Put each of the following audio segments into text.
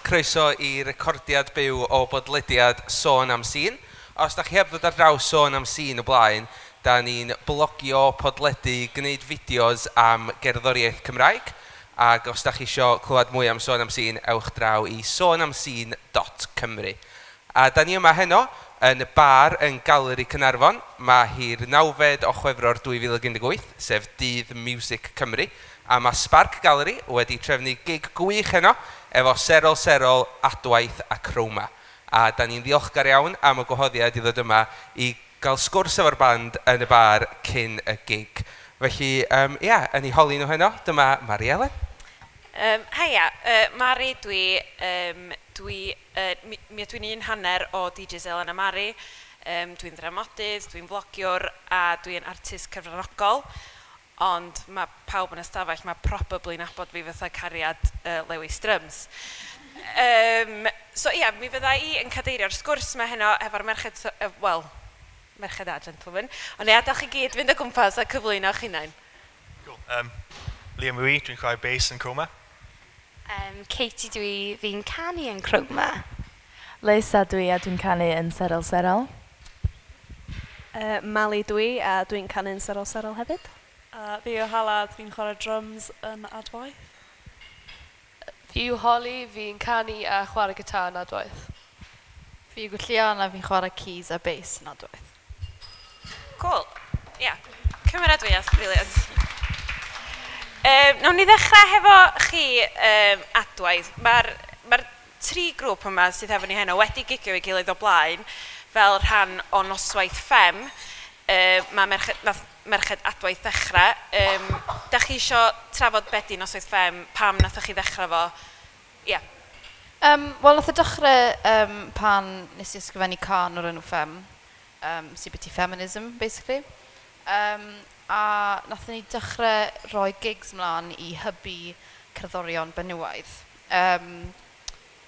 Croeso i recordiad byw o bodlediad Sôn am Sîn. Os da chi heb ddod ar draws Sôn am Sîn o blaen, da ni'n blogio, podledu, gwneud fideos am gerddoriaeth Cymraeg. Ac os da chi isio clywed mwy am Sôn am Sîn, ewch draw i sonamsîn.cymru. A da ni yma heno yn y bar yn Galeri Caernarfon. Mae hi'r 9fed o Chwefror 2018, sef Dydd Miwsig Cymru. A mae Spark Gallery wedi trefnu gig gwych heno efo Serol Serol, Adwaith a Chroma. A da ni'n ddiolchgar iawn am y gwahoddiad i ddod yma i gael sgwrs efo'r band yn y bar cyn y gig. Felly, ia, yn eu holi nhw heno, dyma Mari Elen. Haia, Mari dwi, dwi, mi ydw i'n un hanner o DJs Elen a Mari. Dwi'n ddramodydd, dwi'n flogiwr a dwi'n artist cyfranogol. Ond mae pawb yn y stafell, mae probably nabod fi fatha cariad Lewis Drums. So ia, mi fydda i yn cadeirio'r sgwrs yma heno efo'r merched, wel, merched a gentlemen. Ond i adael chi gyd fynd o gwmpas a cyflwyno eich hunain. Cool. Liam yw i, dwi'n chwarae bass yn Chroma. Katie dwi, fi'n canu yn Chroma. Lisa dwi a dwi'n canu yn Serol Serol. Mali dwi a dwi'n canu yn Serol Serol hefyd. Fi yw Hala, dwi'n chwarae drums yn Adwaith. Fi yw Holly, fi'n canu a chwarae gitar yn Adwaith. Fi yw Gwenllian a fi'n chwarae keys a bass yn Adwaith. Cool. Ia, yeah. Cymeradwyaeth, brilliant. Nawn ni ddechrau hefo chi, Adwaith. Mae'r tri grŵp yma sydd efo ni heno wedi gigio ei gilydd o blaen fel rhan o noswaith Ffem. Mae merched, nath merched Adwaith ddechrau. Da chi isio trafod be di noswaith Ffem, pam nathoch chi ddechrau fo? Ie. Yeah. Wel, nath o dechrau pan nes i ysgrifennu cân o'r enw Ffem, sy'n byti feminism, basically. A nathon ni dechrau rhoi gigs mlaen i hybu cerddorion benywaidd.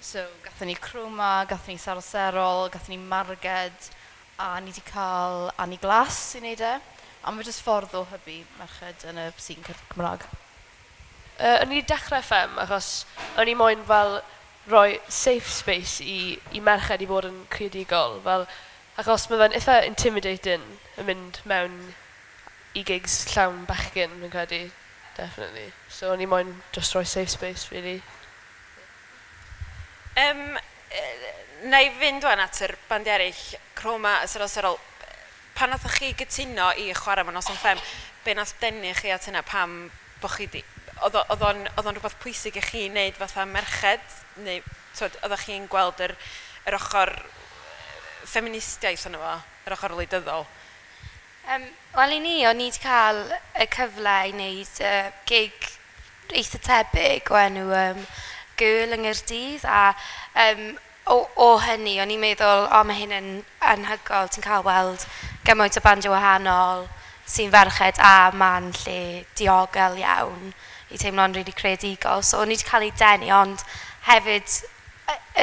So, gathon ni Chroma, gathon ni Serol Serol, gathon ni Marged, a ni wedi cael Annie Glass i wneud e. A mae jyst ffordd o hybu merched yn y sîn Cymraeg. O'n i wedi dechrau Ffem achos o'n i moyn fel rhoi safe space i merched i fod yn creadigol. Fel, achos mae fe'n eitha intimidating yn mynd mewn i gigs llawn bechgyn, fi'n credu, definitely. So o'n i moyn just rhoi safe space, really. Na i fynd wan at yr band eraill, Chroma a Serol Serol. Pan nathoch chi gytuno i chwarae mewn noson Ffem, be nath denu chi at hynna? Pam bo chi di... Oedd o'n rhywbeth pwysig i chi wneud fatha merched? Neu, twyd, oeddech chi'n gweld yr ochr ffeministiaeth yno fo, yr ochr wleidyddol? Wel, i ni, o'n i wedi cael y cyfle i wneud gig eitha tebyg o enw Girl yng Nghaerdydd, a o hynny, o'n i'n meddwl, o, mae hyn yn anhygoel, ti'n cael weld gymaint o bandiau wahanol sy'n ferched a ma'n lle diogel iawn i teimlo'n rili creadigol. So o'n i wedi cael ei denu, ond hefyd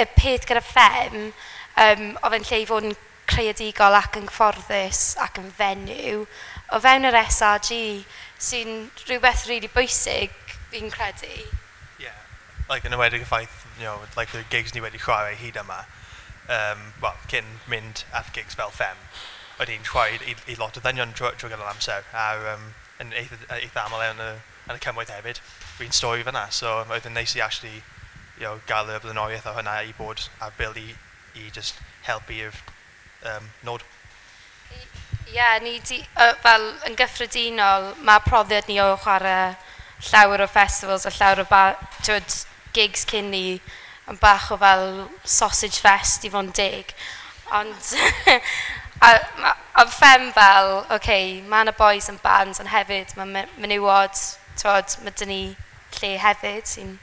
y peth gyda Ffem, oedd e'n lle i fod yn creadigol ac yn gyfforddus ac yn fenyw o fewn yr SRG, sy'n rhywbeth rili bwysig, fi'n credu. Yeah, like yn enwedig y ffaith, like the gigs ni wedi chwarae hyd yma, well, cyn mynd at gigs fel Ffem, oedd hi'n chwarae i lot o ddynion trwy gydol amser, a yn eitha aml yn y cymoedd hefyd. Fi'n stori fyna, so oedd yn neis i actually, gael y blaenoriaeth o hynna i bod ar bil i just helpu'r nod. Ie, yeah, ni di, fel yn gyffredinol, mae profiad ni o chwarae llawer o festivals a llawer o twyd, gigs cyn ni yn bach o fel sausage fest i fod yn deg. Ond a Ffem fel, oce, okay, mae yna boys yn bands, ond hefyd mae menywod, twod, mae dyn ni lle hefyd sy'n...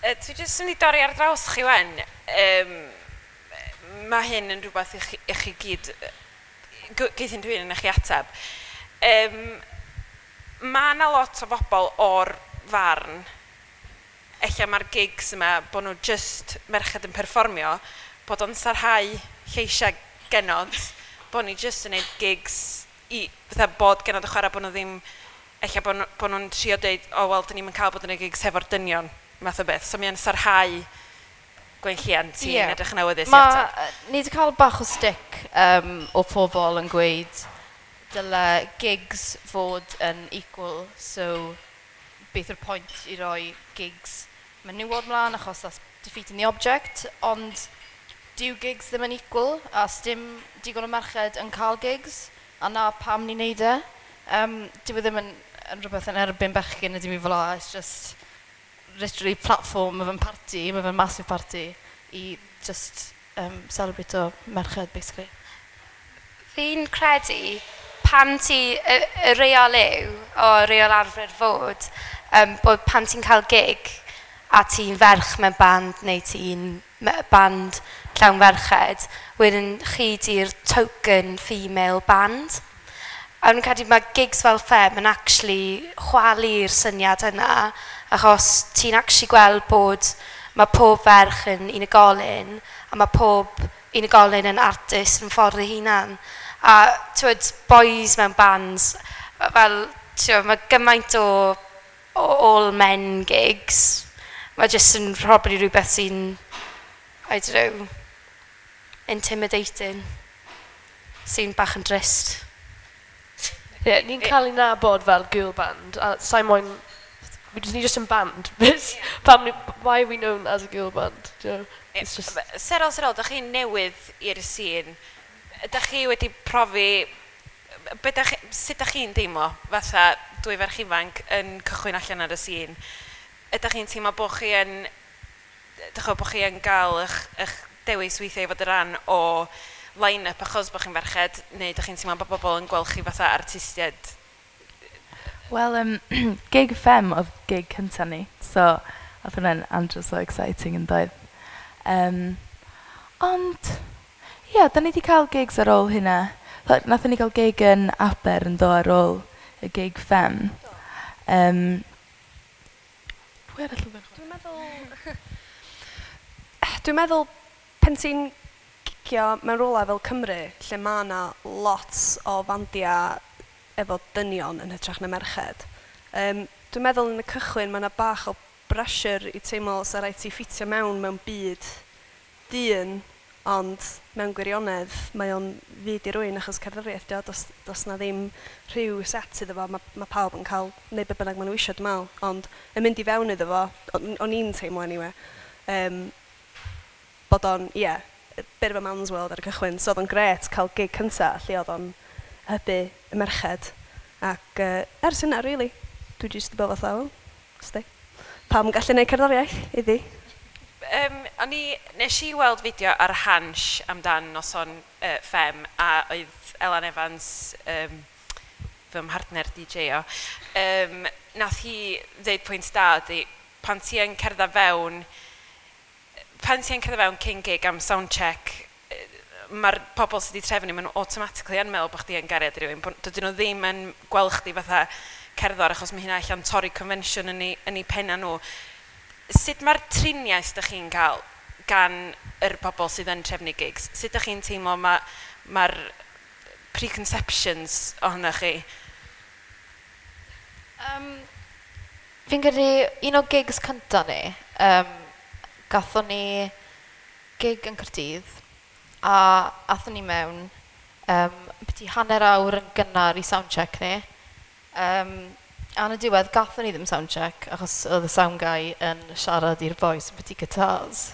Dwi jyst yn mynd i dorri ar draws chi wen. Mae hyn yn rhywbeth i chi gyd, geith unrhyw un yn eich ateb. Mae yna lot o bobl o'r farn, ella mae'r gigs yma, bod nhw just merched yn perfformio, bod o'n sarhau lleisiau genod, bod ni just yn neud gigs i, fatha bod genod y chwarae, bod nhw ddim, ella bod nhw'n trio deud, o wel, dyn ni'm yn cael bod yn y gigs hefo'r dynion, math o beth. So mae'n sarhau Gwenllian, ti'n yeah. edrych yn awyddus i Ma, ateb. Ni wedi cael bach o stick o pobl yn gweud dyle gigs fod yn equal, so beth yw'r pwynt i roi gigs menywod mlaen achos that's defeating the object, ond dyw gigs ddim yn equal, a sdim digon o merched yn cael gigs, a na pam ni'n neud e. Dyw e ddim yn rhywbeth yn erbyn bechgyn na dim i fel 'a, it's just literally platform, mae fe'n party, mae fe'n massive party i just celebrate o merched, basically. Fi'n credu pan ti, y reol yw, o reol arfer fod, bod pan ti'n cael gig a ti'n ferch mewn band neu ti'n band llawn ferched, wedyn chi di'r token female band. A nhw'n credu mae gigs fel Ffem yn actually chwalu'r syniad yna, achos ti'n actually gweld bod mae pob ferch yn unigolyn, a mae pob unigolyn yn artist yn ffordd ei hunan. A t'wod, boys mewn bands, fel, t'wod, mae gymaint o all men gigs. Mae jyst yn probably rhywbeth sy'n, I don't know, intimidating. Sy'n bach yn drist. Ie, yeah, ni'n cael ei nabod fel girl band, a sa'i moyn... Ni just yn band. Pam ni, why are we known as a girl band? Do you know? It's just... Serol Serol, da chi'n newydd i'r sîn. Ydych chi wedi profi... Be dach chi, sut dach chi'n deimlo fatha dwy ferch ifanc yn cychwyn allan ar y sîn? Ydych chi'n teimlo bod chi yn... Dych chi'n bod chi yn gael eich dewis weithiau i fod yn rhan o line-up achos bod chi'n ferched, neu ydych chi'n teimlo bod bobl yn gweld chi fatha artistiaid? Wel, gig Ffem oedd gig cynta ni, so oedd hwnna'n andros o exciting yn doedd. Ond, ie, yeah, da ni wedi cael gigs ar ôl hynna. Nathon ni gael gig yn Aber yn do ar ôl y gig Ffem. Pwy arall oedd yn chwarae? Dwi'n meddwl pen ti'n gigio mewn rhywle fel Cymru, lle mae yna lot o fandiau efo dynion yn hytrach na merched. Dwi'n meddwl yn y cychwyn mae yna bach o pressure i teimlo sa rhaid ti ffitio mewn byd dyn, ond mewn gwirionedd mae o'n fyd i rywun achos cerddoriaeth dio, does na ddim rhyw set iddo fo, mae pawb yn cael neud be bynnag maen nhw eisiau, dwi'n meddwl, ond yn mynd i fewn iddo fo, o'n i'n teimlo anyway, bod o'n, ie, yeah, bit of a man's world ar y cychwyn, so oedd o'n gret cael gig cynta lle oedd o'n hybu y merched. Ac ers hynna, really, dwi jyst wedi bod fatha, wel, sti, pam yn gallu gwneud cerddoriaeth iddi. Nes i weld fideo ar Hansh amdan noson Ffem, a oedd Elan Evans, fy mhartner DJ o, nath hi ddeud pwynt da ydy, pan ti yn cerdded fewn cyn gig am sound check, mae'r pobl sydd wedi trefnu, maen nhw automatically yn meddwl bod chdi yn gariad i rywun. Dydyn nhw ddim yn gweld chdi fatha cerddor, achos mae hynna allan torri convention yn eu penna nhw. Sut mae'r triniaeth ydych chi'n cael gan yr pobl sydd yn trefnu gigs? Sut ydych chi'n teimlo mae'r preconceptions ohonoch chi? Fi'n credu un o gigs cynta ni, gathon ni gig yn Caerdydd, a athon ni mewn byti hanner awr yn gynnar i soundcheck ni. A yn y diwedd, gathon ni ddim soundcheck, achos oedd y sound guy yn siarad i'r boys byti guitars.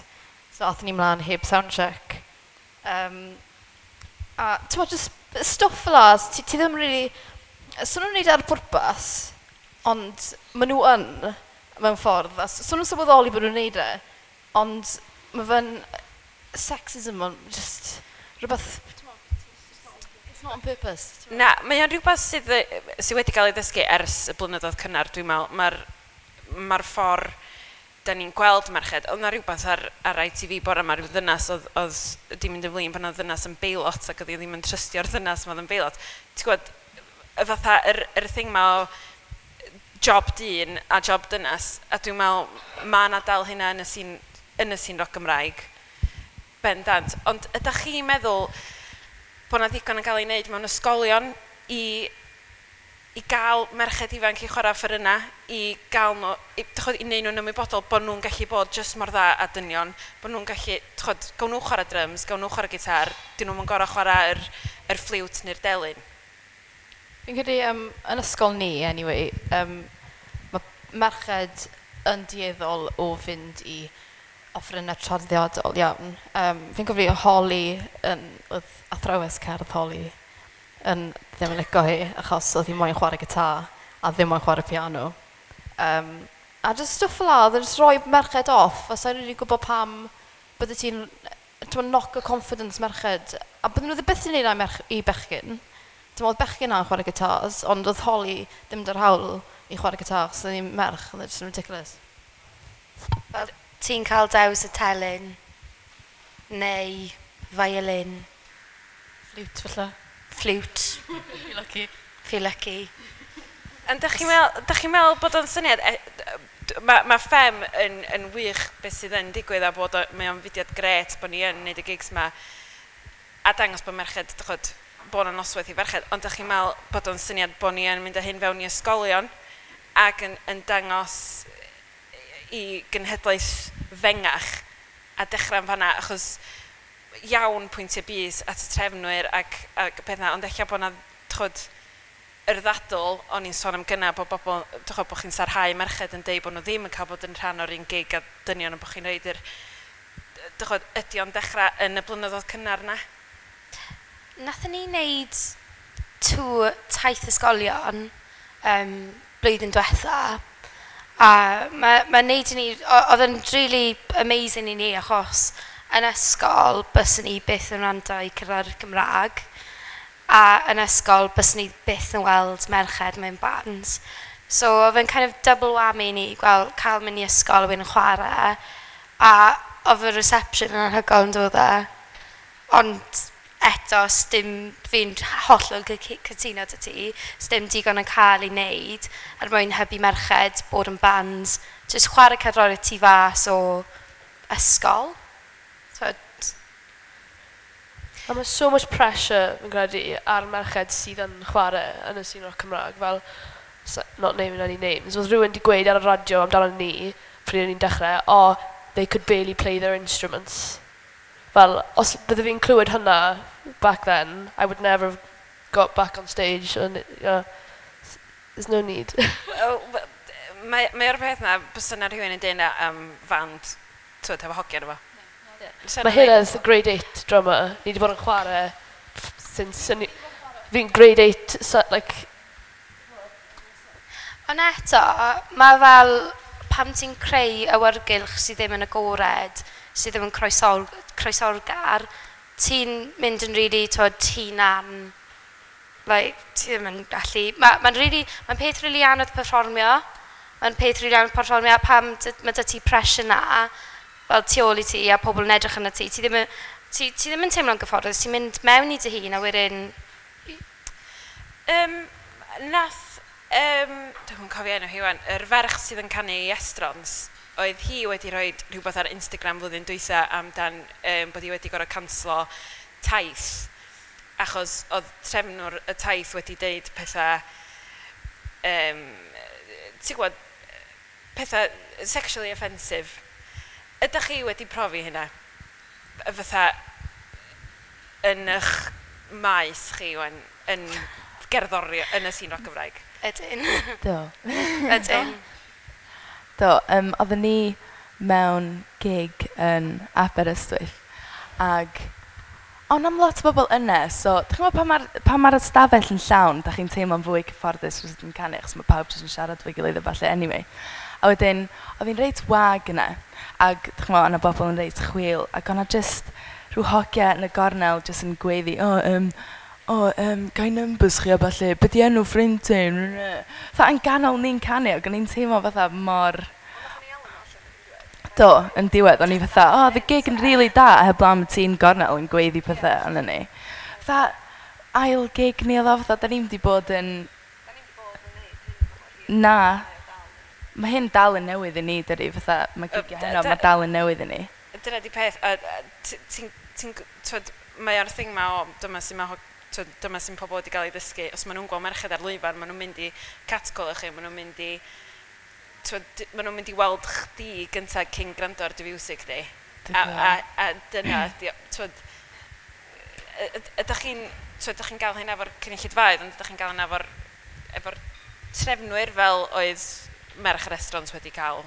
So athon ni mlaen heb soundcheck. A ti'n just stwff fel 'a, ti ddim really... So nhw'n neud e ar pwrpas, ond maen nhw yn, mewn ffordd. A so nhw'n sylweddoli bod nhw'n neud e, ond mae fe'n sexism, ond just rhywbeth... It's not on purpose. Na, mae o'n rhywbeth sydd wedi cael ei ddysgu ers y blynyddoedd cynnar, dwi'n meddwl. Mae'r ffordd da ni'n gweld merched, oedd na rhywbeth ar ITV bore yma, rhyw ddynas oedd di mynd yn flin pan oedd ddynas yn beilot ac oedd hi ddim yn trystio'r ddynas ma oedd yn beilot. Ti'n gwybod, y fatha, yr thing ma o job dyn a job dynas, a dwi'n meddwl, mae yna dal hynna yn y sîn roc Gymraeg, bendant. Ond ydych chi'n meddwl bod na ddigon yn cael ei wneud mewn ysgolion i i gael merched ifanc i chwarae offerynnau, i gael nhw, i, chod, i wneud nhw'n ymwybodol bod nhw'n gallu bod jyst mor dda a dynion, bod nhw'n gallu, chod, gawn nhw chwarae drums, gawn nhw chwarae gitar, dyn nhw'n gorau chwarae yr ffliwt neu'r delyn. Fi'n credu yn ysgol ni, anyway, mae merched yn dueddol o fynd i offerynnau traddodiadol iawn. Fi'n cofio Holly, oedd athrawes cerdd Holly, yn ddim yn licio hi, achos oedd hi moyn chwarae gitar a ddim moyn chwarae piano. A just stwff fel 'na, oedd yn just rhoi merched off, a sa'n rili gwybod pam bydde ti'n knock o confidence merched. A bydden nhw ddim byth yn neud 'na i bechgyn. Ti'n meddwl, bechgyn na'n chwarae gitars, ond oedd Holly ddim 'da'r hawl i chwarae gitar, achos oedd hi'n merch, oedd e just yn ridiculous. Fel ti'n cael dewis y telyn, neu violin. Flute, falle. Flute. Feel lucky. Feel lucky. Ond dych chi'n meddwl bod o'n syniad, mae Ffem yn wych beth sydd yn digwydd a bod mae o'n fudiad grêt bod ni yn neud y gigs ma a dangos bod merched, dych bod yna noswaith i ferched, ond dych chi'n meddwl bod o'n syniad bod ni yn mynd â hyn fewn i ysgolion ac yn dangos i genhedlaeth fengach a dechrau yn fanna, achos iawn pwyntiau bys at y trefnwyr ac pethau, ond ella bod yna, chod, yr ddadl, o'n i'n sôn am gynna, bod bobl, chod, bod chi'n sarhau merched yn deud bod nhw ddim yn cael bod yn rhan o'r un gig a dynion, ond bod chi'n rhoid yr, chod, ydy o'n dechrau yn y blynyddoedd cynnar na? Nathon ni wneud tŵr taith ysgolion blwyddyn diwetha, a mae wneud i ni, oedd yn really amazing i ni, achos yn ysgol byswn ni byth yn wrando i cerddoriaeth Gymraeg, a yn ysgol byswn ni byth yn weld merched mewn bands. So oedd yn kind of double whammy i ni gweld, cael mynd i ysgol a wedyn chwarae, a oedd y reception yn anhygoel yn dod e. Ond eto, sdim, fi'n hollol cytuno 'da ti, sdim digon yn cael ei wneud er mwyn hybu merched bod yn bands, jyst chwarae cerddoriaeth tu fas o ysgol. So, A mae so much pressure, fi'n credu, ar merched sydd yn chwarae yn y sîn rock Cymraeg, fel, not naming any names, oedd rhywun wedi gweud ar y radio amdano ni, pryd o'n i'n dechrau, "Oh, they could barely play their instruments." Fel, os bydde fi'n clywed hynna back then, I would never have got back on stage, and yeah, there's no need. Wel, mae o'r peth na, bysa yna rhywun yn deud na am fand, twyd, efo hogiau efo. Fysa Mae 'na ddim. Heledd, grade 8 drummer, ni wedi bod yn chwarae since fi'n grade 8, so, like. Ond eto, mae fel pam ti'n creu awyrgylch sydd ddim yn agored, sydd ddim yn croesawgar, ti'n mynd yn really, twod, hunan, like, ti ddim yn gallu. Mae'n really, mae'n peth really anodd perfformio. Mae'n peth really anodd perfformio pam mae 'da ti pressure na, fel tu ôl i ti a pobl yn edrych arno ti. Ti ddim yn teimlo'n gyfforddus, ti'n mynd mewn i dy hun a wedyn. Nath, dwi'n cofio enw hi wan, yr ferch sydd yn canu i Estrons, oedd hi wedi rhoi rhywbeth ar Instagram flwyddyn dwytha amdan bod hi wedi gorfod canslo taith, achos oedd trefnwr y taith wedi deud pethau, ti'n gwybod, pethau sexually offensive. Ydych chi wedi profi hynna? Fatha, yn eich maes chi wan, yn gerddori, yn y sîn roc Gymraeg? Ydyn. Do. Ydyn. Do, oedden ni mewn gig yn Aberystwyth, ag ond am lot o bobl yna, so dych chi'n gwybod pan ma'r ystafell yn llawn, dach chi'n teimlo'n fwy cyfforddus wrth yn canu, achos mae pawb jyst yn siarad efo'i gilydd a ballu anyway. A wedyn, oedd hi'n reit wag yna, ac dych chi'n gwybod, o'na bobl yn reit chwil, ac o'na jyst rhyw hogia yn y gornel jyst yn gweiddi, "O, oh, gai numbers chi a ballu, be di enw ffrind ti?" Fatha yn ganol ni'n canu, ac o'n i'n teimlo fatha mor. Do, yn diwedd, o'n i fatha, "Oh, the gig yn really da, heblaw am y ti'n gornel yn gweiddi pethau arno ni." Fatha, ail gig ni oedd o, fatha, da ni'n wedi bod yn. Na. Mae hyn dal yn newydd i ni, dydi, fatha, mae gigiau heno, mae dal yn newydd i ni. Dyna di peth, a ti'n, twod, mae o'r thing ma o, dyma sy'n mae Twyd, dyma sy'n pobl wedi cael ei ddysgu. Os maen nhw'n gweld merched ar lwyfan, maen nhw'n mynd i catcall chi, maen nhw'n mynd i... Twyd, maen nhw'n mynd i weld chdi gyntaf cyn gwrando ar dy fiwsig di. A dyna, twyd, ydych chi'n ydych chi'n gael hynna efo'r cynulleidfaoedd, ond ydych chi'n gael hynna efo'r trefnwyr fel oedd merch y restaurant wedi cael,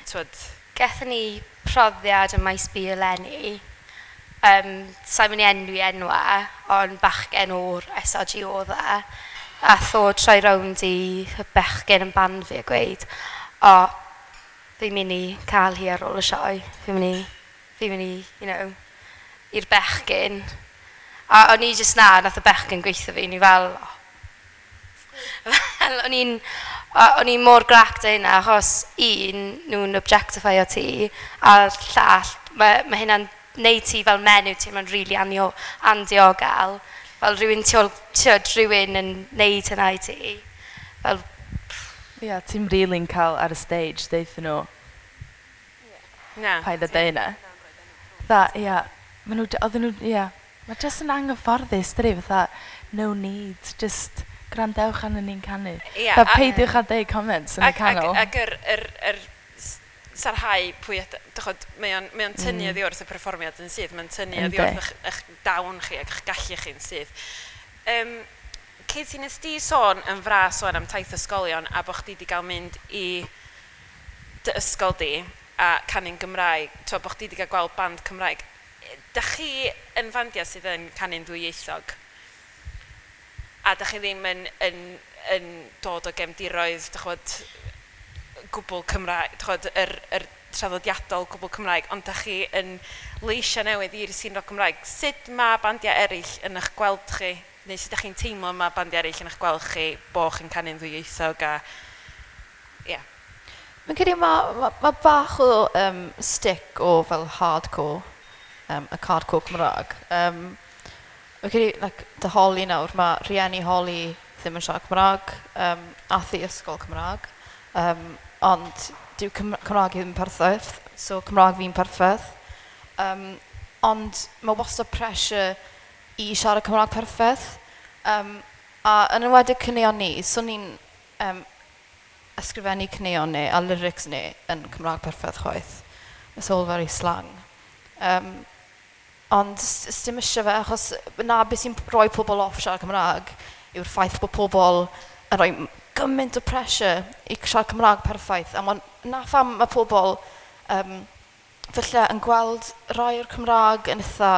twyd? Gaethon ni profiad ym Maes B eleni. Sa i'n mynd i enwi enwau, ond bachgen o'r SRG oedd e. Ath o troi rownd i bechgyn yn band fi a gweud, "O, fi'n mynd i cael hi ar ôl y sioe. Fi'n mynd i, i'r bechgyn." A o'n i jyst na, nath y bechgyn gweithio fi, ni fel, oh. Fel, o'n i'n mor grac 'da hynna, achos un, nhw'n objectifio ti, a'r llall, mae hynna'n neud ti fel menyw teimlo'n rili andiogel. Fel rhywun tu ôl, ti'od, rhywun yn neud hynna i ti. Fel, Ie, yeah, ti'n really'n cael ar y stage, deuthon nhw, Na. "Paid â deud hynna." Fatha, ia, maen nhw, oedden nhw, ia, mae jyst yn anghyfforddus, dydi, fatha, no need, just gwrandewch arnon ni'n canu. Fatha, peidiwch â deud comments yn y canol. Ac yr sarhau pwy dychod, mae o'n tynnu oddi wrth y perfformiad yn syth, mae'n tynnu oddi wrth eich dawn chi ac eich gallu chi'n syth. Katie, nes di sôn yn fras sôn am taith ysgolion a bod chdi wedi cael mynd i dy ysgol di a canu'n Gymraeg, t'wo, bod chdi wedi cael gweld band Cymraeg. Dach chi yn fandiau sydd yn canu'n ddwyieithog? A dach chi ddim yn dod o gefndiroedd, dych ch'mod, gwbl Cymraeg, dych ch'mod, yr traddodiadol gwbl Cymraeg, ond dach chi yn leisiau newydd i'r sîn roc Cymraeg. Sut mae bandiau eraill yn eich gweld chi? Neu sut dach chi'n teimlo mae bandiau eraill yn eich gweld chi bo chi'n canu'n ddwyieithog a... Ie. Yeah. Mae'n credu ma bach o stick o fel hardcore, y hardcore Cymraeg. Fi'n credu, like, dy Holly nawr, mae rhieni Holly ddim yn siarad Cymraeg, ath i ysgol Cymraeg, ond dyw Cymraeg i ddim yn perffaith, so Cymraeg fi'n perffaith. Ond mae wastad pressure i siarad Cymraeg perffaith. A yn enwedig caneuon ni, so ni'n ysgrifennu caneuon ni a lyrics ni yn Cymraeg perffaith chwaith. It's all very slang. Ond dim eisiau fe, achos na beth sy'n rhoi pobl off siarad Cymraeg yw'r ffaith bod pobl yn rhoi gymaint o pressure i siarad Cymraeg perffaith. A na pham mae pobl falle yn gweld rai o'r Cymraeg yn eitha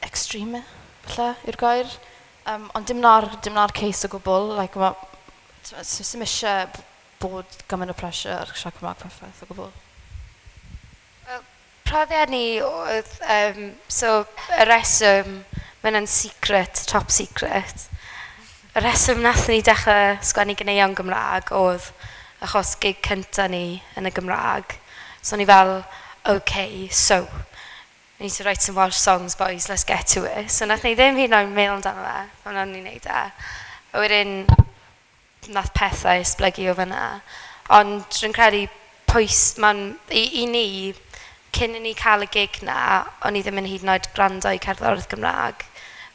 extreme, falle, yw'r gair. Ond dim na'r case o gwbl. Like, sim eisiau bod gymaint o pressure ar siarad Cymraeg perffaith o gwbl. Profiad ni oedd, so y reswm, mae hwnna'n secret, top secret. Y reswm nath ni dechrau sgwennu ganeuon Gymraeg oedd achos gig cynta ni yn y Gymraeg. So ni fel, "Okay, so, we need to write some Welsh songs, boys, let's get to it." So nath ni ddim hyd yn oed meddwl amdano fe, pan o'n ni'n neud e. A wedyn, nath pethau esblygu o fyna. Ond rwy'n credu pwys, ma'n, i ni, cyn i ni cael y gig na, o'n i ddim yn hyd yn oed gwrando i cerddoriaeth Gymraeg.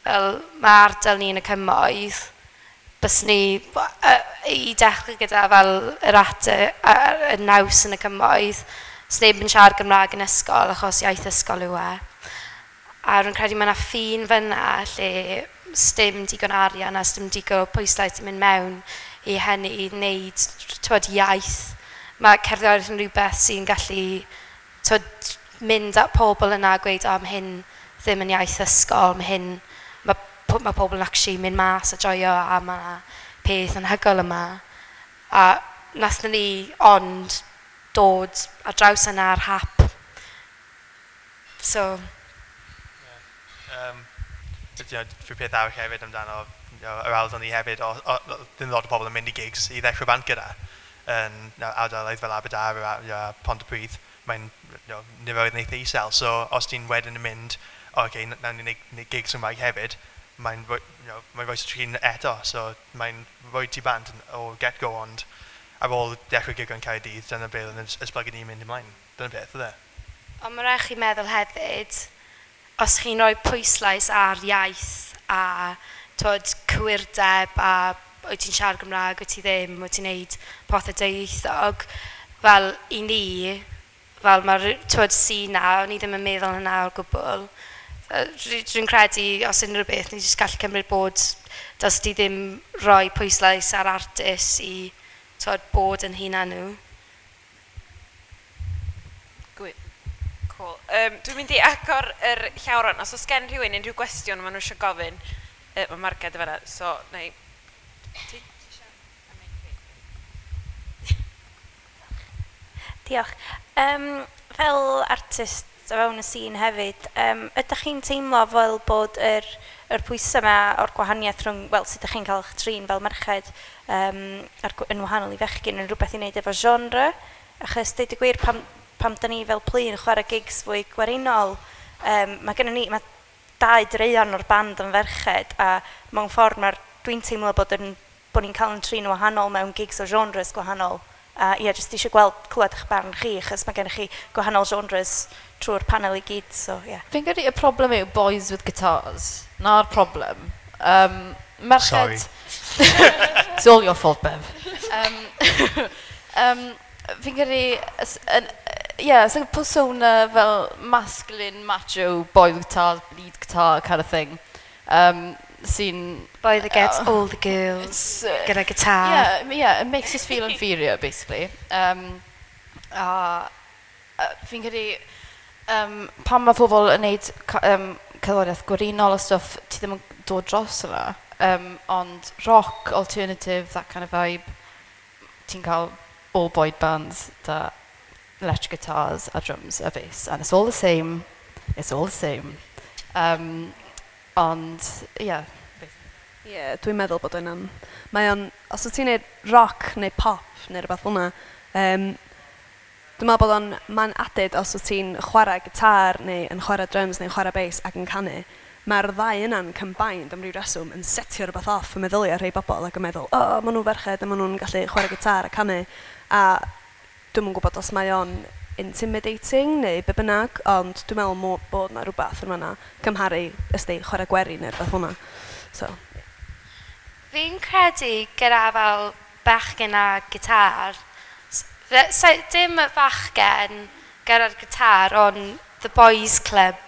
Fel, mae ardal ni yn y cymoedd, bys ni, i dechrau gyda fel yr at y naws yn y cymoedd, sneb yn siarad Gymraeg yn ysgol achos iaith ysgol yw e. A rwy'n credu mae yna ffin fyna lle sdim digon arian a sdim digon o pwyslais yn mynd mewn i hynny i wneud, t'wod, iaith. Mae cerddoriaeth yn rhywbeth sy'n gallu, t'wod, mynd at pobl yna a gweud, "O, mae hyn ddim yn iaith ysgol, mae hyn, mae pobl yn actually mynd mas a joio a mae yna peth anhygoel yma." A nathon ni ond dod ar draws yna ar hap. So, Rhyw peth arall hefyd amdano yr ardal ni hefyd, o, ddim lot o pobl yn mynd i gigs i ddechrau band gyda. Yn ardaloedd fel Aberdâr a Pontypridd, mae'n niferoedd yn eitha isel. So os ti'n wedyn yn mynd, "O, okay, nawn ni wneud gigs Cymraeg hefyd," mae'n rhoi mae'n rhoi trin eto. So mae'n rhoi ti bant o get-go, ond ar ôl dechrau gig yn Caerdydd, dyna beth oedd yn esblygu ni'n mynd ymlaen. Dyna beth, oedd e. Ond mae rhaid chi meddwl hefyd, os chi'n rhoi pwyslais ar iaith a twod, cywirdeb a wyt ti'n siarad Gymraeg, wyt ti ddim, wyt ti'n neud pethau dwyieithog. Fel i ni, fel mae'r twod sîn na, o'n i ddim yn meddwl hynna o'r gwbl. Dwi'n credu, os unrhyw beth, ni jyst gallu cymryd bod, does di ddim rhoi pwyslais ar artist i twod, bod yn hunan nhw. Gwy. Cool. Dwi'n mynd i agor yr llawr rwan. Os oes gen rhywun unrhyw gwestiwn maen nhw eisiau gofyn, mae Marged yn fan'na, so na i... Ti? Diolch. Fel artist o fewn y sîn hefyd, ydych chi'n teimlo fel bod yr pwysau yma o'r gwahaniaeth rhwng, wel, sut ydych chi'n cael eich trin fel merched yn wahanol i fechgyn yn rhywbeth i wneud efo genre? Achos deud y gwir, pam da ni fel Plu yn chwarae gigs fwy gwerinol, mae gennym ni, mae 2 draean o'r band yn ferched, a mewn ffordd dwi'n teimlo bod ni'n cael yn trin wahanol mewn gigs o genres gwahanol. A ie, jyst eisiau gweld, clywed eich barn chi, achos mae gennych chi gwahanol genres trwy'r panel i gyd, so ie. Yeah. Fi'n credu y problem yw boys with guitars. Na'r problem. Merched... Sorry. It's all your fault, Bev. Fi'n credu... Yeah, it's like a persona fel masculine, macho, boy with guitars, lead guitar kind of thing. Sy'n... Boy that gets all the girls, gyda guitar. Yeah, it makes us feel inferior, basically. A fi'n credu, pan mae pobl yn neud cerddoriaeth gwerinol a stwff, ti ddim yn dod dros yna. Ond rock, alternative, that kind of vibe, ti'n cael all boy bands da electric guitars a drums a bass, and it's all the same. It's all the same. Ond, yeah. Ie, yeah, dwi'n meddwl bod yna'n... Mae o'n... Os wyt ti'n neud rock neu pop neu rhywbeth fel yna, dwi'n meddwl bod o'n... Mae'n added os wyt ti'n chwarae gitar neu yn chwarae drums neu'n chwarae bass ac yn canu. Mae'r ddau yna'n combined am ryw reswm yn setio rhywbeth off y meddyliau rhai bobl ac yn meddwl, o, oh, maen nhw'n ferched a maen nhw'n gallu chwarae gitar a canu. A dwi'm yn gwybod os mae o'n intimidating neu be bynnag, ond dwi'n meddwl bod na rhywbeth yn fan'na cymharu ysdi chwarae gwerin neu rhywbeth fel 'na. So. Fi'n credu gyda fel bachgen a gitar, so, dim y bachgen gyda'r gitar, ond the boys club.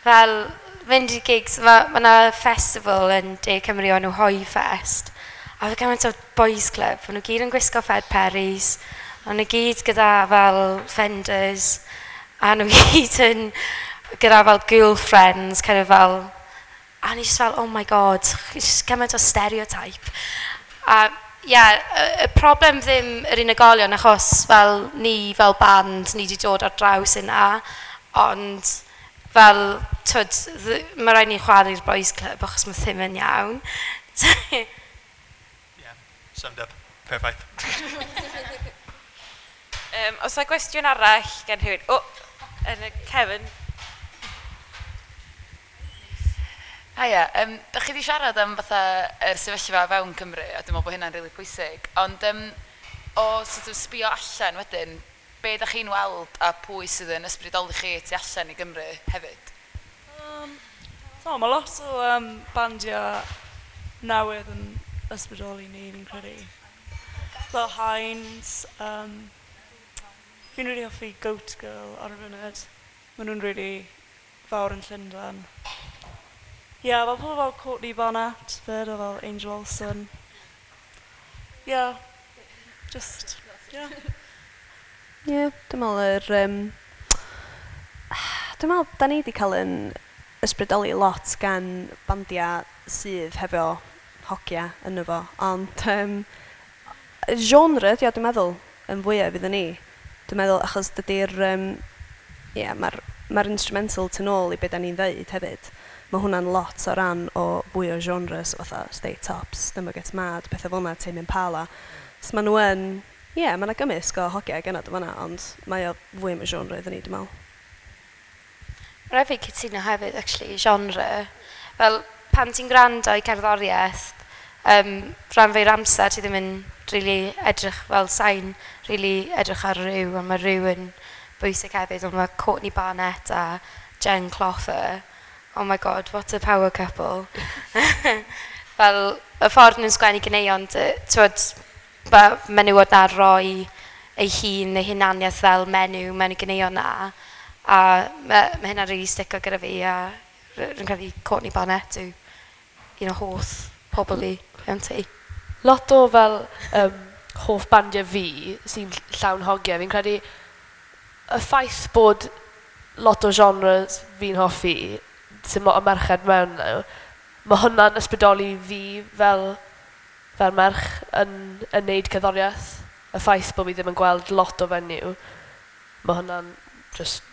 Fel fynd i gigs, mae ma 'na festival yn De Cymru o'n nhw Hoe Fest. A fe gymaint o boys club, maen nhw gyd yn gwisgo Fred Perrys, maen nhw gyd gyda fel Fenders, a nhw gyd yn gyda fel girlfriends, kind of fel. A ni just fel, oh my god, just gymaint o stereotype. A ie, yeah, y problem ddim yr unigolion, achos fel ni fel band, ni wedi dod ar draws yna, ond fel, twyd, mae rhaid ni chwarae'r boys club achos mae ddim yn iawn. Yeah, summed up. Perfect. Os yna gwestiwn arall gen rhywun? O, yn y cefn. Haia, da chi wedi siarad am fatha yr sefyllfa fewn Cymru, a dwi'n meddwl bod hynna'n rili pwysig, ond o sort of sbio allan wedyn, be da chi'n weld a pwy sydd yn ysbrydoli chi tu allan i Gymru hefyd? So, mae lot o bandiau newydd yn ysbrydoli ni, fi'n credu. Fel Hinds, fi'n really hoffi Goat Girl ar y funud. Maen nhw'n really fawr yn Llundain. Ie, yeah, fel pobl fel Courtney Barnett, fyd, a fel Angel Olsen. Yeah, just, yeah. Ie, yeah, dwi'n meddwl dwi'n meddwl, da ni wedi cael yn ysbrydoli lot gan bandiau sydd hefo hogia yno fo, ond genre, ydi o, dwi'n meddwl, yn fwyaf iddyn ni. Dwi'n meddwl, achos dydy'r... Yeah, mae'r ma instrumental tu nôl i be da ni'n ddeud hefyd. Mae hwnna'n lot o ran o fwy o genres, fatha State Tops, Stumble Gets Mad, pethau fel yna, Tame Impala. So maen nhw yn... Ie, yeah, mae yna gymysg o hogiau genod o fan'na, ond mae o fwy am y genre iddyn ni, dwi'n meddwl. Rhaid fi cytuno hefyd, actually, genre. Fel, pan ti'n gwrando i cerddoriaeth, rhan fwy'r amser ti ddim yn really edrych fel sain, really edrych ar rhyw, a mae rhyw yn bwysig hefyd, ond mae Courtney Barnett a Jen Kloffer. oh my god, what a power couple. Fel, y ffordd nhw'n sgwennu ganeuon, t'wod, ma' menywod 'na roi ei hun neu hunaniaeth fel menyw mewn y ganeuon 'na. A ma' hynna'n rili stico gyda fi a rwy'n credu Courtney Barnett yw un o hoff pobl fi mewn tŷ. Lot o fel hoff bandiau fi sy'n llawn hogiau. Fi'n credu y ffaith bod lot o genres fi'n hoffi sy'n lot o merched mewn nhw, mae hwnna'n ysbrydoli fi fel merch yn neud cerddoriaeth. Y ffaith bod fi ddim yn gweld lot o fenyw, mae hwnna'n just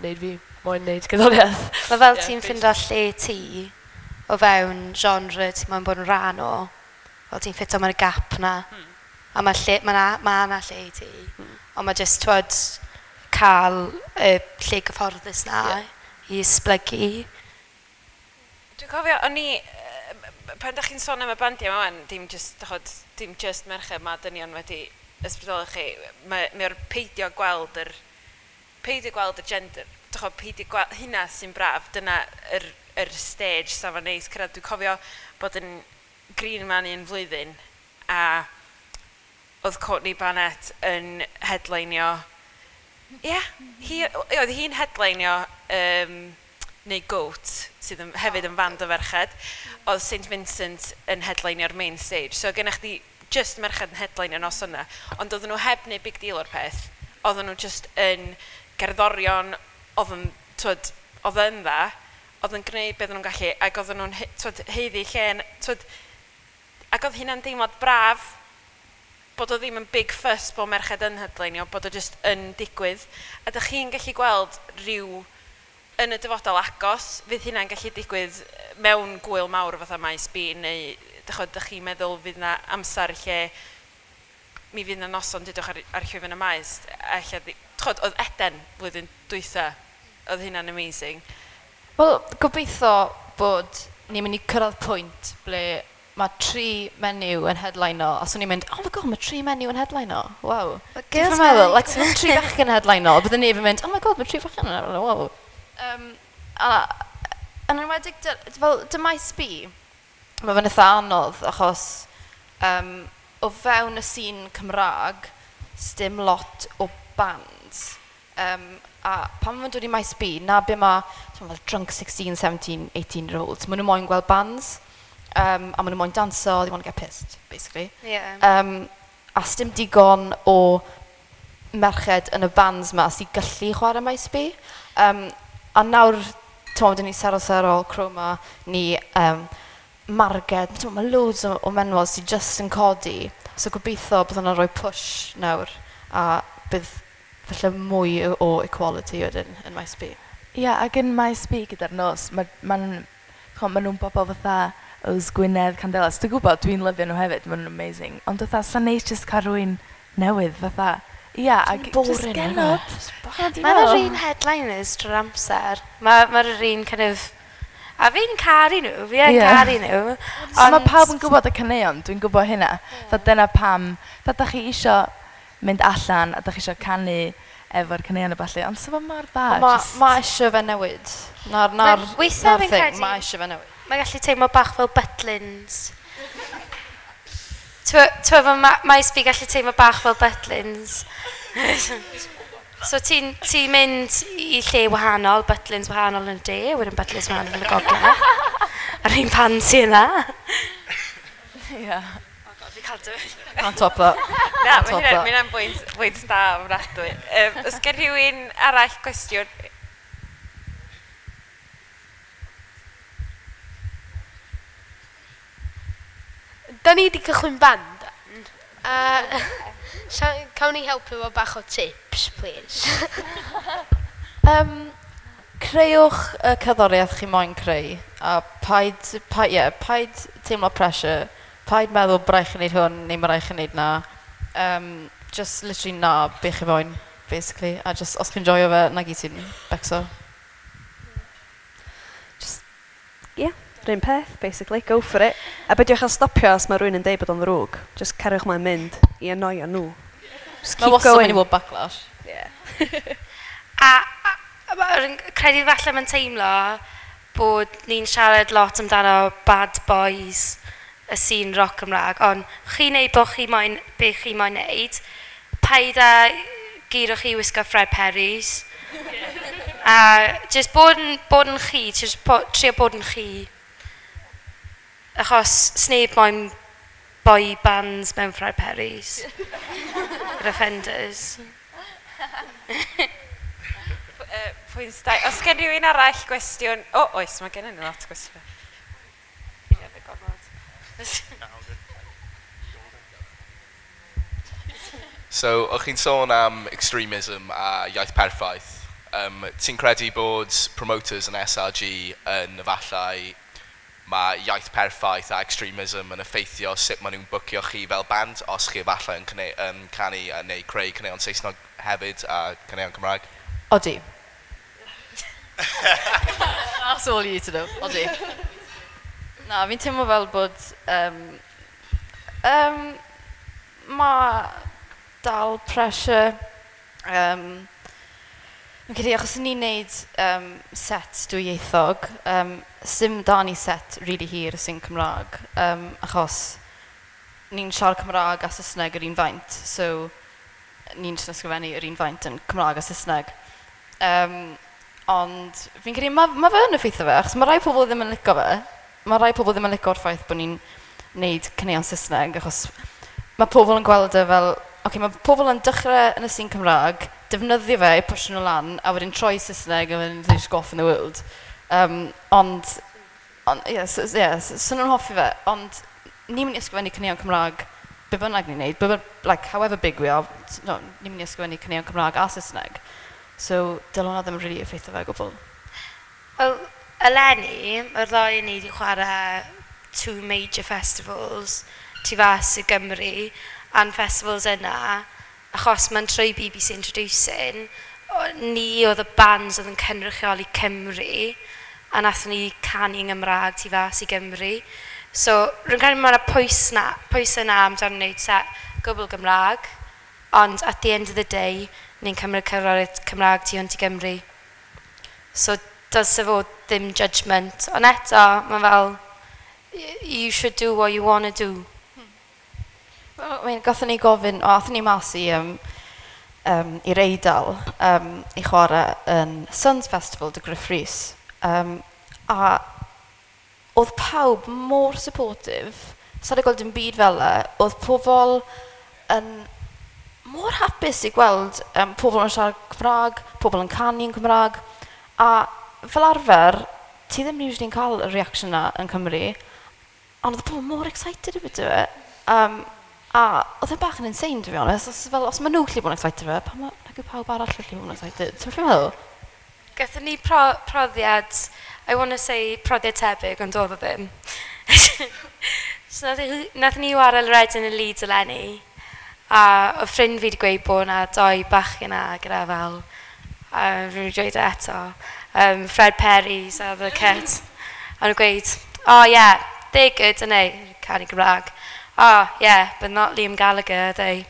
neud fi moyn neud cerddoriaeth. Mae fel ti'n ffindo lle ti o fewn genre ti'n moyn bod yn rhan o. Fel ti'n ffito mewn y gap na. A mae lle, ma 'na lle i ti. Ond mae jyst, twod, cael y lle gyfforddus na i esblygu. Dwi'n cofio, o'n i, pan da chi'n sôn am y bandiau yma wan, dim just, dachod, dim just merched, mae dynion wedi ysbrydoli chi. Mae'r peidio gweld y gender, dachod, peidio gweld, hynna sy'n braf, dyna yr stage safon neis cyrraedd. Dwi'n cofio bod yn Green Man un flwyddyn, a oedd Courtney Barnett yn headlineio. Ie, yeah, oedd hi'n headlineio neu Goat, sydd yn, hefyd yn fand o ferched. Oedd St Vincent yn headlineio'r main stage. So gennych chdi just merched yn headlineio nos yna. Ond oedden nhw heb wneud big deal o'r peth. Oedden nhw just yn gerddorion, oedd yn, twod, oedd yn dda, oedd yn gwneud beth nhw'n gallu, ac oedden nhw'n twod, haeddu lle, twod, ac oedd hynna'n deimlad braf, bod o ddim yn big fuss bod merched yn headlineio, bod o just yn digwydd. A dych chi'n gallu gweld rhyw yn y dyfodol agos, fydd hynna'n gallu digwydd mewn gwyl mawr fatha Maes B, neu dych chi'n meddwl fydd na amser lle mi fydd na noson dydwch ar llwyfan y maes, a ella, ch'od, oedd Eden blwyddyn dwytha, oedd hynna'n amazing. Wel, gobeithio bod ni'n mynd i cyrraedd pwynt ble mae tri menyw yn headline-o, a swn i'n mynd, "Oh my god, mae tri menyw yn headline-o, wow." Well, Ti'n girls' meddwl, night. Like, mae tri bachgen yn headline-o, byddwn ni yn mynd, "Oh my god, mae tri bachgen yn headline-o, wow." A yn enwedig, fel, dy Maes B, mae fe'n eitha anodd, achos o fewn y sîn Cymraeg, sdim lot o bands. A pan maen nhw'n dod i Maes B, na be mae, ti'n fel drunk 16, 17, 18 year olds, maen nhw moyn gweld bands, a maen nhw moyn danso, they want to get pissed, basically. A sdim digon o merched yn y bands ma sy'n gallu chwarae Maes B. A nawr, ti'n dyn ni Sero Sero, Chroma, ni Marged, ti'n mae loads o menwod sy'n just yn codi. So gobeithio bydd hwnna'n rhoi push nawr, a bydd falle mwy o equality wedyn yn Maes B. Ie, yeah, ac yn Maes B gyda'r nos, ma nhw'n bobl fatha Yws Gwynedd, Candelas. Dwi'n gwybod, dwi'n lyfio nhw hefyd, maen nhw'n amazing. Ond fatha, sa'n neis just cael rhywun newydd, fatha, ia, yeah, ac just Boring, genod. innit? Mae'r yr un headliners drwy'r amser. Mae'r yr un kind of. A fi'n caru nhw, fi yn caru nhw. Ond mae pawb yn gwybod y caneuon, dwi'n gwybod hynna. Yeah. Dyna pam, fatha da chi isio mynd allan a da chi isio canu efo'r caneuon a ballu, ond sa fo mor dda. Ma, ma eisiau fe newid. Na'r Weithiau na'r fi'n thing, credu- ma eisiau fe newid. Mae'n gallu teimlo bach fel Butlins. T'wo, fel Maes B gallu teimlo bach fel Butlins. So ti'n ti mynd i lle wahanol, Butlins wahanol yn y de, wedyn Butlins wahanol yn y gogledd. A'r un pan sy yna. Ie. Oh god, fi cael dweud. Can't top that. Na, Can't mae top hynna, that. mae hynna'n bwynt da ofnadwy. Oes gen rhywun arall gwestiwn? Da ni wedi cychwyn band. A cawn ni helpu efo bach o tips, please? Creuwch y cerddoriaeth chi moyn creu, a paid, yeah, paid teimlo pressure, paid meddwl bod rhaid chi wneud hwn neu mae rhaid chi wneud na. Just literally na be chi moyn, basically. A just, os chi'n joio fe, na gyd sy'n becso. Ie, yeah, rhywun peth, basically. Go for it. A beidiwch â stopio os mae rhywun yn deud bod o'n ddrwg. Just cariwch mlaen mynd i annoio nhw. Just Mae keep wastad going. mynd i fod backlash. Yeah. A credu falle mae'n teimlo bod ni'n siarad lot amdano bad boys y scene rock Cymraeg, ond chi'n neud bod chi moyn, be chi moyn neud, paid â guro chi wisgo Fred Perry's. A just bod yn chi, just trio bod yn chi. Achos sneb moyn boy bands mewn Fred Perry's. Yr offenders. Pwynt da. Os gen rhywun arall gwestiwn... O, oes, mae gen i lot o gwestiynau. Gormod. So, o'ch chi'n sôn am extremism a iaith perffaith. Ti'n credu bod promoters yn SRG yn efallai mae iaith perffaith a extremism yn effeithio sut maen nhw'n bwcio chi fel band, os chi efallai yn canu a neu creu caneuon Saesneg hefyd a caneuon Cymraeg? Odi. That's all you need to know. Odi. Na, fi'n teimlo fel bod mae dal pressure. Fi'n credu achos ni'n neud set dwyieithog, sim da ni set really hir sy'n Cymraeg, achos ni'n siarad Cymraeg a Saesneg yr un faint, so ni'n jyst ysgrifennu yr un faint yn Cymraeg a Saesneg. Ond fi'n credu ma fe yn effeithio fe, achos mae rai pobl ddim yn licio fe. Mae rai pobl ddim yn licio'r ffaith bod ni'n neud caneuon Saesneg, achos mae pobl yn gweld e fel, okay, mae pobl yn dechrau yn y sîn Cymraeg, defnyddio fe i pwysio nhw lan, a wedyn troi Saesneg, a wedyn they just go off in the world. Ond, yeah, so, yeah, so nhw'n hoffi fe, ond ni'n mynd i ysgrifennu caneuon Cymraeg be bynnag ni'n neud, like, however big we are, no, ni'n mynd i ysgrifennu caneuon Cymraeg a Saesneg. So, dyle hwnna ddim really effeithio fe o gwbl. Wel, eleni, mae'r ddau ni wedi chwarae two major festivals tu fas i Gymru, a'n festivals yna, achos mae'n trwy BBC Introducing, ni oedd y bands oedd yn cynrychioli Cymru, a nathon ni canu yng Nghymraeg tu fas i Gymru. So, rwy'n credu mae yna pwys yna amdano wneud set gwbl Gymraeg, ond at the end of the day, ni'n cymryd cerddoriaeth Cymraeg tu hwnt i Gymru. So, dylse fod ddim judgment. Ond eto, mae fel, you should do what you want to do. Well, I mean, gathon ni gofyn, o, athon ni mas i'r Eidal i chwarae yn Suns Festival 'da Gruff Rhys. A oedd pawb mor supportive. Sa i gweld dim byd fel e. Oedd pobl yn mor hapus i gweld pobl yn siarad Cymraeg, pobl yn canu yn Cymraeg. A fel arfer, ti ddim usually yn cael y reaction na yn Cymru, ond oedd pobl mor excited about it. A oedd e'n bach yn insane, to be honest. Os maen nhw gallu bod yn excited fe, pam nag yw pawb arall gallu bod yn excited? Ti'n meddwl? Gathon ni profiad, I want to say profiad tebyg, ond oedd o ddim. So nath ni wario Reading and Leeds eleni, a oedd ffrind fi wedi gweud bod yna doi bachgen yna gyda fel, a rwy'n wedi dweud e eto, Fred Perry's a The Cut. A nhw'n gweud, "Oh yeah, they're good, aren't they?" Canu Gymraeg. "Oh yeah, but not Liam Gallagher, are they?"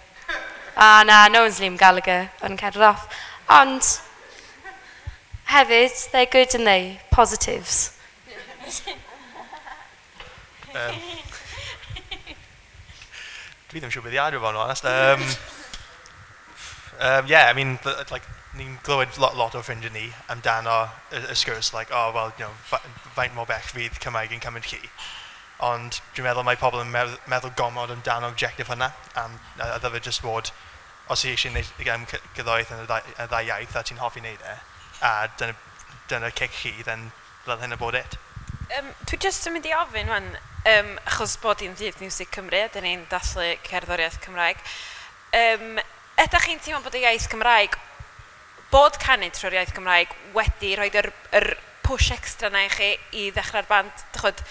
"Ah, na, no one's Liam Gallagher." O'n cerdded off. Ond, hefyd, they're good, aren't they? Positives. Dwi ddim siŵr beth i adio fo'n honest. Yeah, I mean, like, ni'n glywed lot o ffrindiau ni amdano y sgwrs, like, "Oh, well, faint mor bell fydd Cymraeg yn cymryd chi?" Ond dwi'n meddwl mae pobl yn meddwl gormod amdano objective hynna, a ddyfe just fod, os ti eisiau gwneud gerddoriaeth yn y ddau iaith a ti'n hoffi wneud e, a dyna cic chi, then dyle hynna bod it. Dwi jyst yn mynd i ofyn wan, achos bod hi'n ddydd Miwsig Cymru, a dyn ni'n dathlu cerddoriaeth Cymraeg. Ydych chi'n teimlo bod y iaith Cymraeg, bod canu trwy'r iaith Cymraeg wedi rhoi yr push extra na i chi i ddechrau'r band? Dych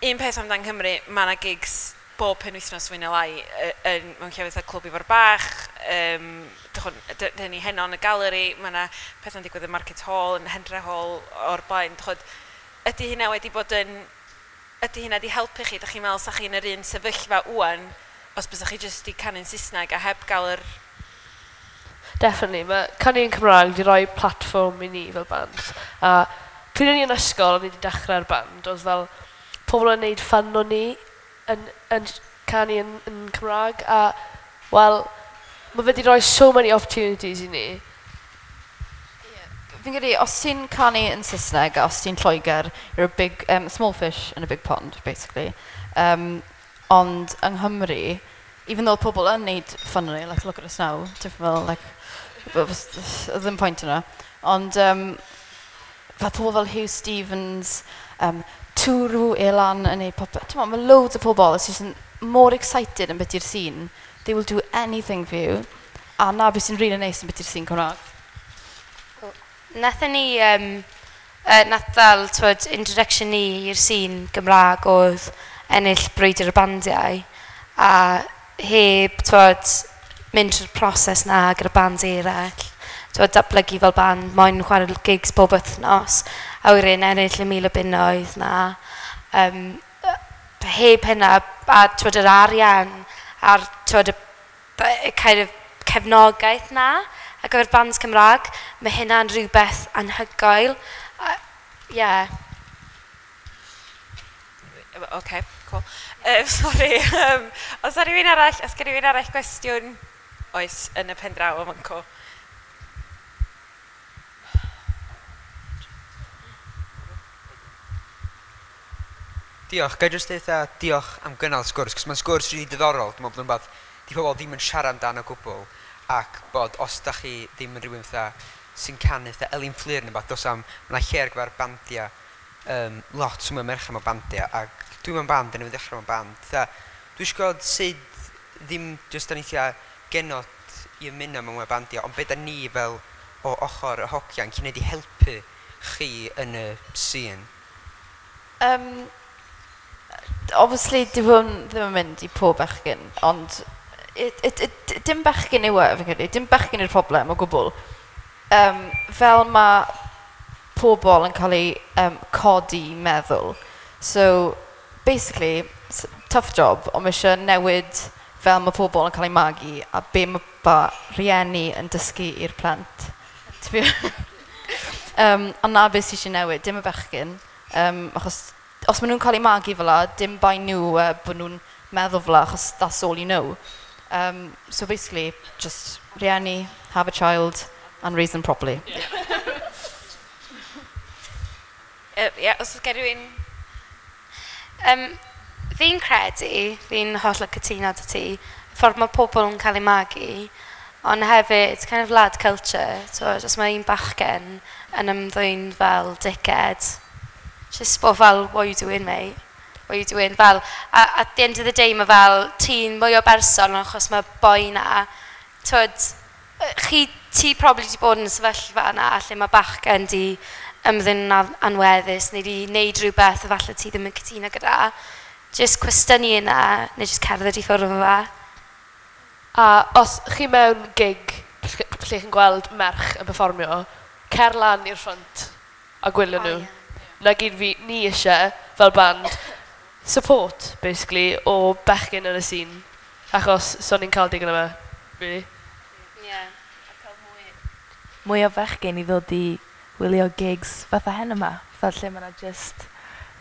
un peth amdan Cymru, mae yna gigs bob penwythnos fwy neu lai mewn llefydd fatha Clwb Ifor Bach, dyn ni heno yn y galeri, mae yna pethau'n digwydd yn Market Hall, yn Hendre Hall o'r blaen. Dych ydy hynna wedi bod yn... Ydy hynna wedi helpu chi? Dych chi'n meddwl sa chi'n yr un sefyllfa wan os bysach chi jyst 'di canu'n Saesneg a heb gael yr... Definitely. Mae canu yn Cymraeg wedi rhoi platfform i ni fel band. A Pryd o'n i yn ysgol, o'n i wedi dechrau'r band, oedd fel pobl yn neud fun o ni yn, yn canu yn, yn Cymraeg, a, wel, mae fe wedi rhoi so many opportunities i ni. Fi'n credu, os ti'n canu yn Saesneg a os ti'n Lloegr, you're a big, small fish in a big pond, basically. Ond yng Nghymru, even though pobl yn neud fun o ni, like, look at us now, ti'n fel, like, ddim pwynt yna. Ond fel pobl fel Hugh Stevens, Twrw Elan yn neud popeth. Ti'n mae loads o pobl sydd yn more excited yn beth i'r scene. They will do anything for you. A na beth sy'n really neis yn beth i'r scene Cymraeg. Nathon ni, nath fel, twyd, introduction ni i'r scene Gymraeg oedd ennill Brwydr y Bandiau a heb, twyd, mynd trwy'r proses na gyda bands eraill. Twyd, datblygu fel band, moyn chwarae gigs bob wythnos, a wedyn ennill y 1,000 o bunnoedd na. Heb hynna, a twyd, yr arian, a'r twyd, y kind of cefnogaeth na, ar gyfer bands Cymraeg, mae hynna'n rhywbeth anhygoel. Yeah. OK, cool. Sorry, os ar rhywun arall, os gen rhywun arall gwestiwn, oes, yn y pen draw o fanco. Diolch. Ga i jyst deud diolch am gynnal sgwrs, cos mae'n sgwrs rili diddorol. Dwi'n meddwl bod yn rhywbeth di pobl ddim yn siarad amdano o gwbl, ac bod os da chi ddim yn rhywun fatha sy'n canu fatha Elin Fflur neu beth, dos am, mae yna lle ar gyfer bandiau, lot mwy o merched mewn bandiau, ac dwi mewn band, a newydd ddechrau mewn band. Fatha, dwi eisiau gweld sut ddim jyst da ni tua genod i ymuno mewn mwy o bandiau, ond be da ni fel o ochr y hogiau yn gwneud i helpu chi yn y scene? Obviously, dyw hwn ddim yn mynd i pob bechgyn, ond it, dim bechgyn yw e, fi'n credu. Dim bechgyn yw'r problem o gwbl. Fel mae pobl yn cael ei codi meddwl. So, basically, tough job, ond mae eisiau newid fel mae pobl yn cael eu magu a be mae ba rieni yn dysgu i'r plant. Ond na beth sydd eisiau newid, dim y bechgyn. Achos os maen nhw'n cael eu magu fel la, dim bai nhw bod nhw'n meddwl fel la, achos that's all you know. So basically, just rieni, have a child, and raise them properly. Yeah, os oes gen rhywun. Fi'n credu, fi'n hollol cytuno 'da ti, y ffordd mae pobl yn cael eu magu, ond hefyd, it's kind of lad culture. So, os mae un bachgen yn ymddwyn fel dickhead, just bod fel, "What are you doing, mate? What are you doing?" Fel, a, at the end of the day, mae fel, ti'n mwy o berson achos mae boi na, twyd, chi, ti probably wedi bod yn y sefyllfa yna lle mae bachgen di ymddwyn yn anweddus neu di wneud rhywbeth efallai ti ddim yn cytuno gyda. Just cwestiynu yna, neu just cerdded i ffwrdd o fe. A os chi mewn gig lle chi'n gweld merch yn perfformio, cer lan i'r front a gwylio nhw. Na gyd fi, ni eisiau, fel band, support, basically, o bechgyn yn y scene. Achos, so ni'n cael digon yma, really. Yeah. Mwy o fechgyn i ddod i wylio gigs fatha hen yma, fatha lle mae yna just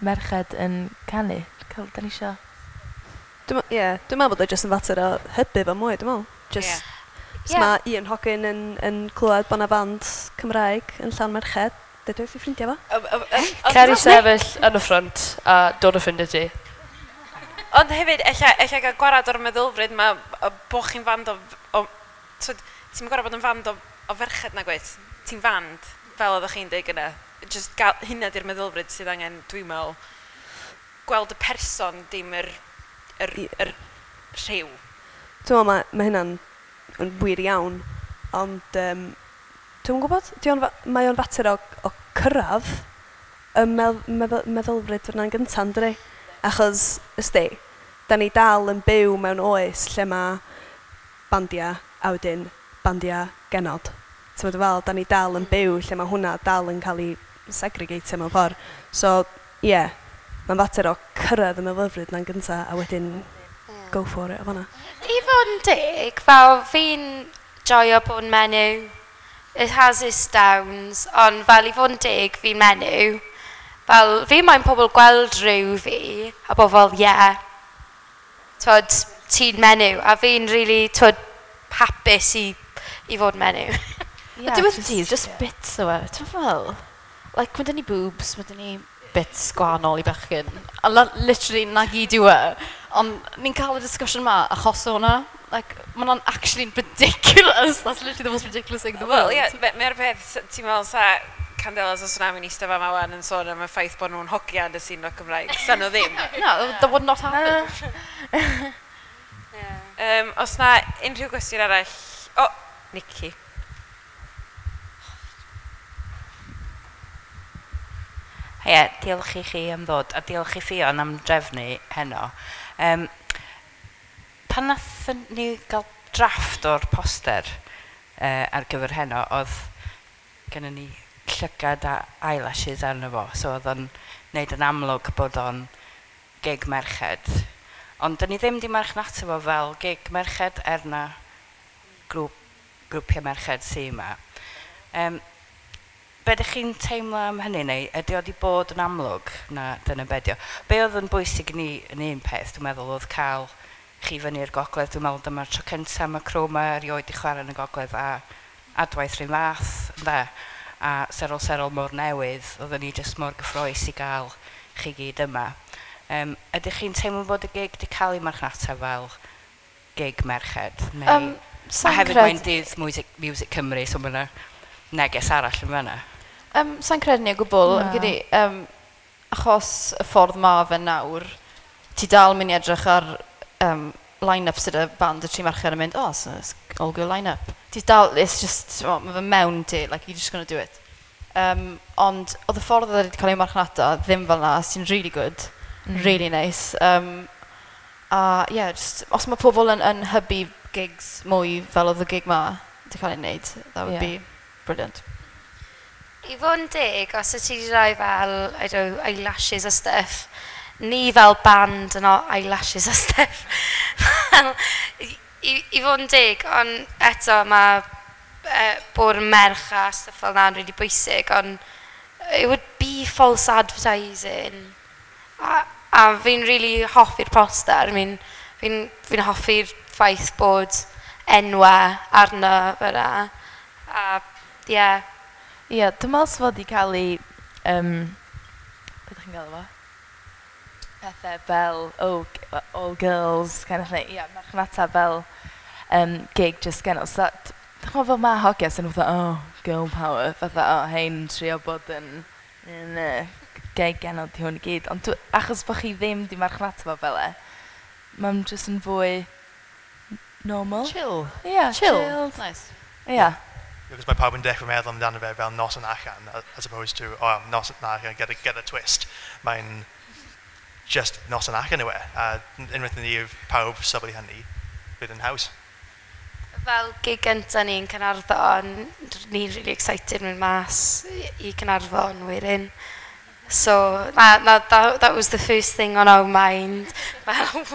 merched yn canu. Cael, da ni isio. Dwi'n ie, dwi'n meddwl bod o jyst yn fater o hybu fo mwy, dwi'n meddwl. Just, os mae un hogyn yn clywed bod 'na fand Cymraeg yn llawn merched, dweud wrth ei ffrindiau fo. Cer i sefyll yn y front a dod o ffrindiau ti. Ond hefyd, ella gael gwarad o'r meddylfryd ma o bo chi'n fand o twyd, ti'n gorfod bod yn fand o ferched na gwaith. Ti'n fand, fel oeddech chi'n deud gyna. Just gael, hynna di'r meddylfryd sydd angen, dwi'n meddwl, gweld y person, dim yr rhyw. Dwi'n meddwl mae hynna'n yn wir iawn, ond dwi'n gwybod, di o'n mae o'n fater o cyrraedd y meddylfryd fyna'n gyntaf, yndydi? Achos, ysdi, da ni dal yn byw mewn oes lle mae bandiau a wedyn bandiau genod. Ti'n meddwl fel, da ni dal yn byw lle mae hwnna dal yn cael ei segregatio mewn ffordd. So, ie, yeah, mae'n fater o cyrraedd y meddylfryd na'n gyntaf a wedyn go for it o fan'na. I fod yn deg, fel fi'n joio bod yn menyw. It has its downs, ond fel i fod yn deg, fi'n menyw. Fel, fi moyn pobl gweld rhyw fi, a bod fel, yeah, twod, ti'n menyw. A fi'n really, twod, hapus i fod menyw. Yeah, diwedd y dydd, just bits o e. Ti'n fel, like, mae dyn ni boobs, mae dyn ni bits gwahanol i bechgyn. A literally, na gyd yw e. Ond ni'n cael y discussion ma achos o hwnna. Like, mae hwnna'n actually ridiculous. That's literally the most ridiculous thing in the world. Wel, ie, mae'r peth, ti'n meddwl sa Candelas o Swnami'n eistedd fama wan yn sôn am y ffaith bod nhw'n hogia yn y sîn roc Cymraeg. Sa nhw ddim. No, that would not happen. Os na unrhyw gwestiwn arall... O, Nicky. Heia, diolch i chi am ddod, a diolch i Ffion am drefnu heno. Pan nathon ni gael drafft o'r poster ar gyfer heno, oedd gennym ni llygad a eyelashes arno fo, so oedd o'n neud yn amlwg bod o'n gig merched. Ond dyn ni ddim di marchnata fo fel gig merched er na grwpiau merched sy yma. Be ydych chi'n teimlo am hynny, neu ydy o wedi bod yn amlwg na dyna be 'di o? Be oedd yn bwysig i ni yn un peth, dwi'n meddwl, oedd cael chi fyny i'r gogledd. Dwi'n meddwl dyma'r tro cyntaf mae Chroma erioed i chwarae yn y gogledd a Adwaith rhywun fath, ynde? A Serol Serol mor newydd, oedden ni jyst mor gyffrous i gael chi gyd yma. Ydych chi'n teimlo bod y gig wedi cael ei marchnata fel gig merched? Neu... A Sa'n hefyd mae'n dydd Music Cymru, so mae yna neges arall yn fan'na. Sa'n credu ni o gwbl, Na. Fi'n credu, achos y ffordd ma fe nawr, ti dal mynd i edrych ar line-up sydd y band y tri merched yn mynd, oh, so it's all girl line-up. Ti dal, it's just, well, ma fe mewn ti, like, you're just gonna do it. Ond oedd y ffordd oedd wedi cael ei marchnata ddim fel na, sy'n really good, really nice. A yeah, just, os mae pobl yn hybu gigs mwy fel oedd y gig ma wedi cael ei wneud, that would be brilliant. I fod yn deg, os y ti wedi rhoi fel, I don't know, eyelashes a stuff, ni fel band yn o eyelashes a stuff. Fel, i fod yn deg, ond eto mae bod yn merch a stuff fel na'n really bwysig, ond it would be false advertising. A fi'n really hoffi'r poster. I mean, fi hoffi'r ffaith bod enwau arno fyna. A, ie. Ie, dwi'n meddwl sef wedi cael ei... Beth ydych chi'n gael fo? Pethau fel, oh, all girls, kind of thing. Ie, marchnata fel gig just genol. So, dwi'n meddwl fel mae hogia sy'n fatha, oh, girl power, fatha, oh, hein, trio bod yn gig genol di hwn i gyd. Ond achos bod chi ddim di marchnata fo fel e, mae'n just yn fwy normal. Chill. Ie, Chill. chilled. Nice. Ie. Because mae pawb yn dechrau meddwl amdano fe fel noson allan, as opposed to, oh, noson allan, get a twist. Mae'n just noson allan yw e. A unwaith ni yw pawb sylwi hynny, bydd yn haws. Fel gig gynta ni yn Caernarfon, ni'n really excited mynd mas i Caernarfon wedyn. So, na, that was the first thing on our mind. Fel,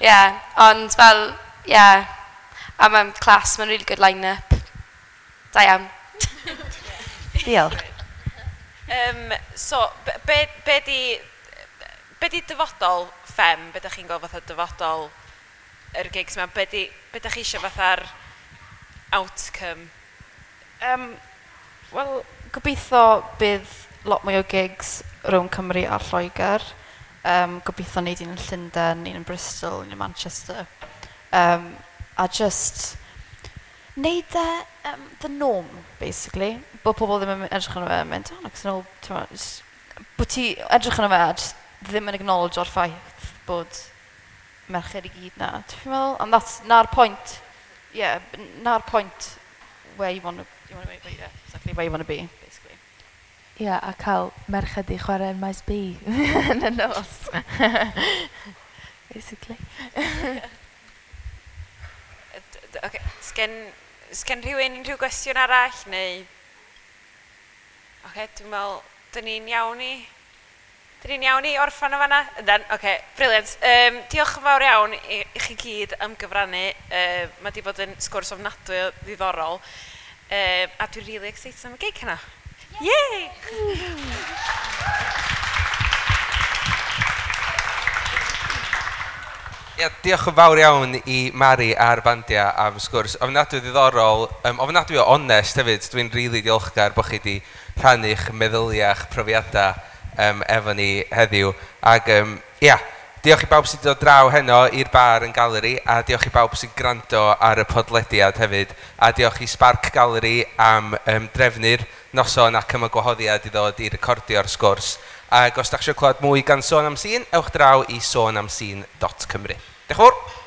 yeah, ond fel, yeah, a mae'n class, mae'n really good line-up. Da iawn. Diolch. So, be di dyfodol Ffem? Be dych chi'n gweld fatha dyfodol yr gigs yma? Be dych chi eisiau fatha'r outcome? Wel, gobeithio bydd lot mwy o gigs rhwng Cymru a Lloegr. Gobeithio wneud un yn Llundain, un yn Bristol, un yn Manchester. A just wneud e the norm, basically. Bod pobl ddim yn edrych arno fe yn mynd, oh, it's an old, t'mo', just, bod ti edrych arno fe a just ddim yn acknowledge o'r ffaith bod merched i gyd na. Ti'n meddwl? And that's na'r point, yeah, na'r point where you want to be, yeah, exactly where you want to be, basically. Ie, yeah, a cael merched i chwarae yn Maes B yn y nos. Basically. Okay. Sgen rhywun unrhyw gwestiwn arall, neu... Oce, dwi'n meddwl, dyn ni'n iawn i orffan o fanna? Yndan, oce, brilliant. Diolch yn fawr iawn i chi gyd am gyfrannu. Mae wedi bod yn sgwrs ofnadwy o ddiddorol. A dwi'n really excited am y gig hynna. Yay! Ia, diolch yn fawr iawn i Mari a'r bandia am sgwrs. Ofnadwy ddiddorol, ofnadwy o onest hefyd. Dwi'n rili really diolchgar bod chi wedi rhannu'ch meddyliau a'ch profiadau efo ni heddiw. Ac ia, diolch i bawb sydd wedi dod draw heno i'r bar yn Galeri, a diolch i bawb sy'n gwrando ar y podlediad hefyd, a diolch i Spark Gallery am drefnu'r noson ac am y gwahoddiad i ddod i recordio'r sgwrs. Ac os da chi eisiau clywed mwy gan Sôn am Sîn, ewch draw i sonamsîn.cymru. Diolch yn fawr!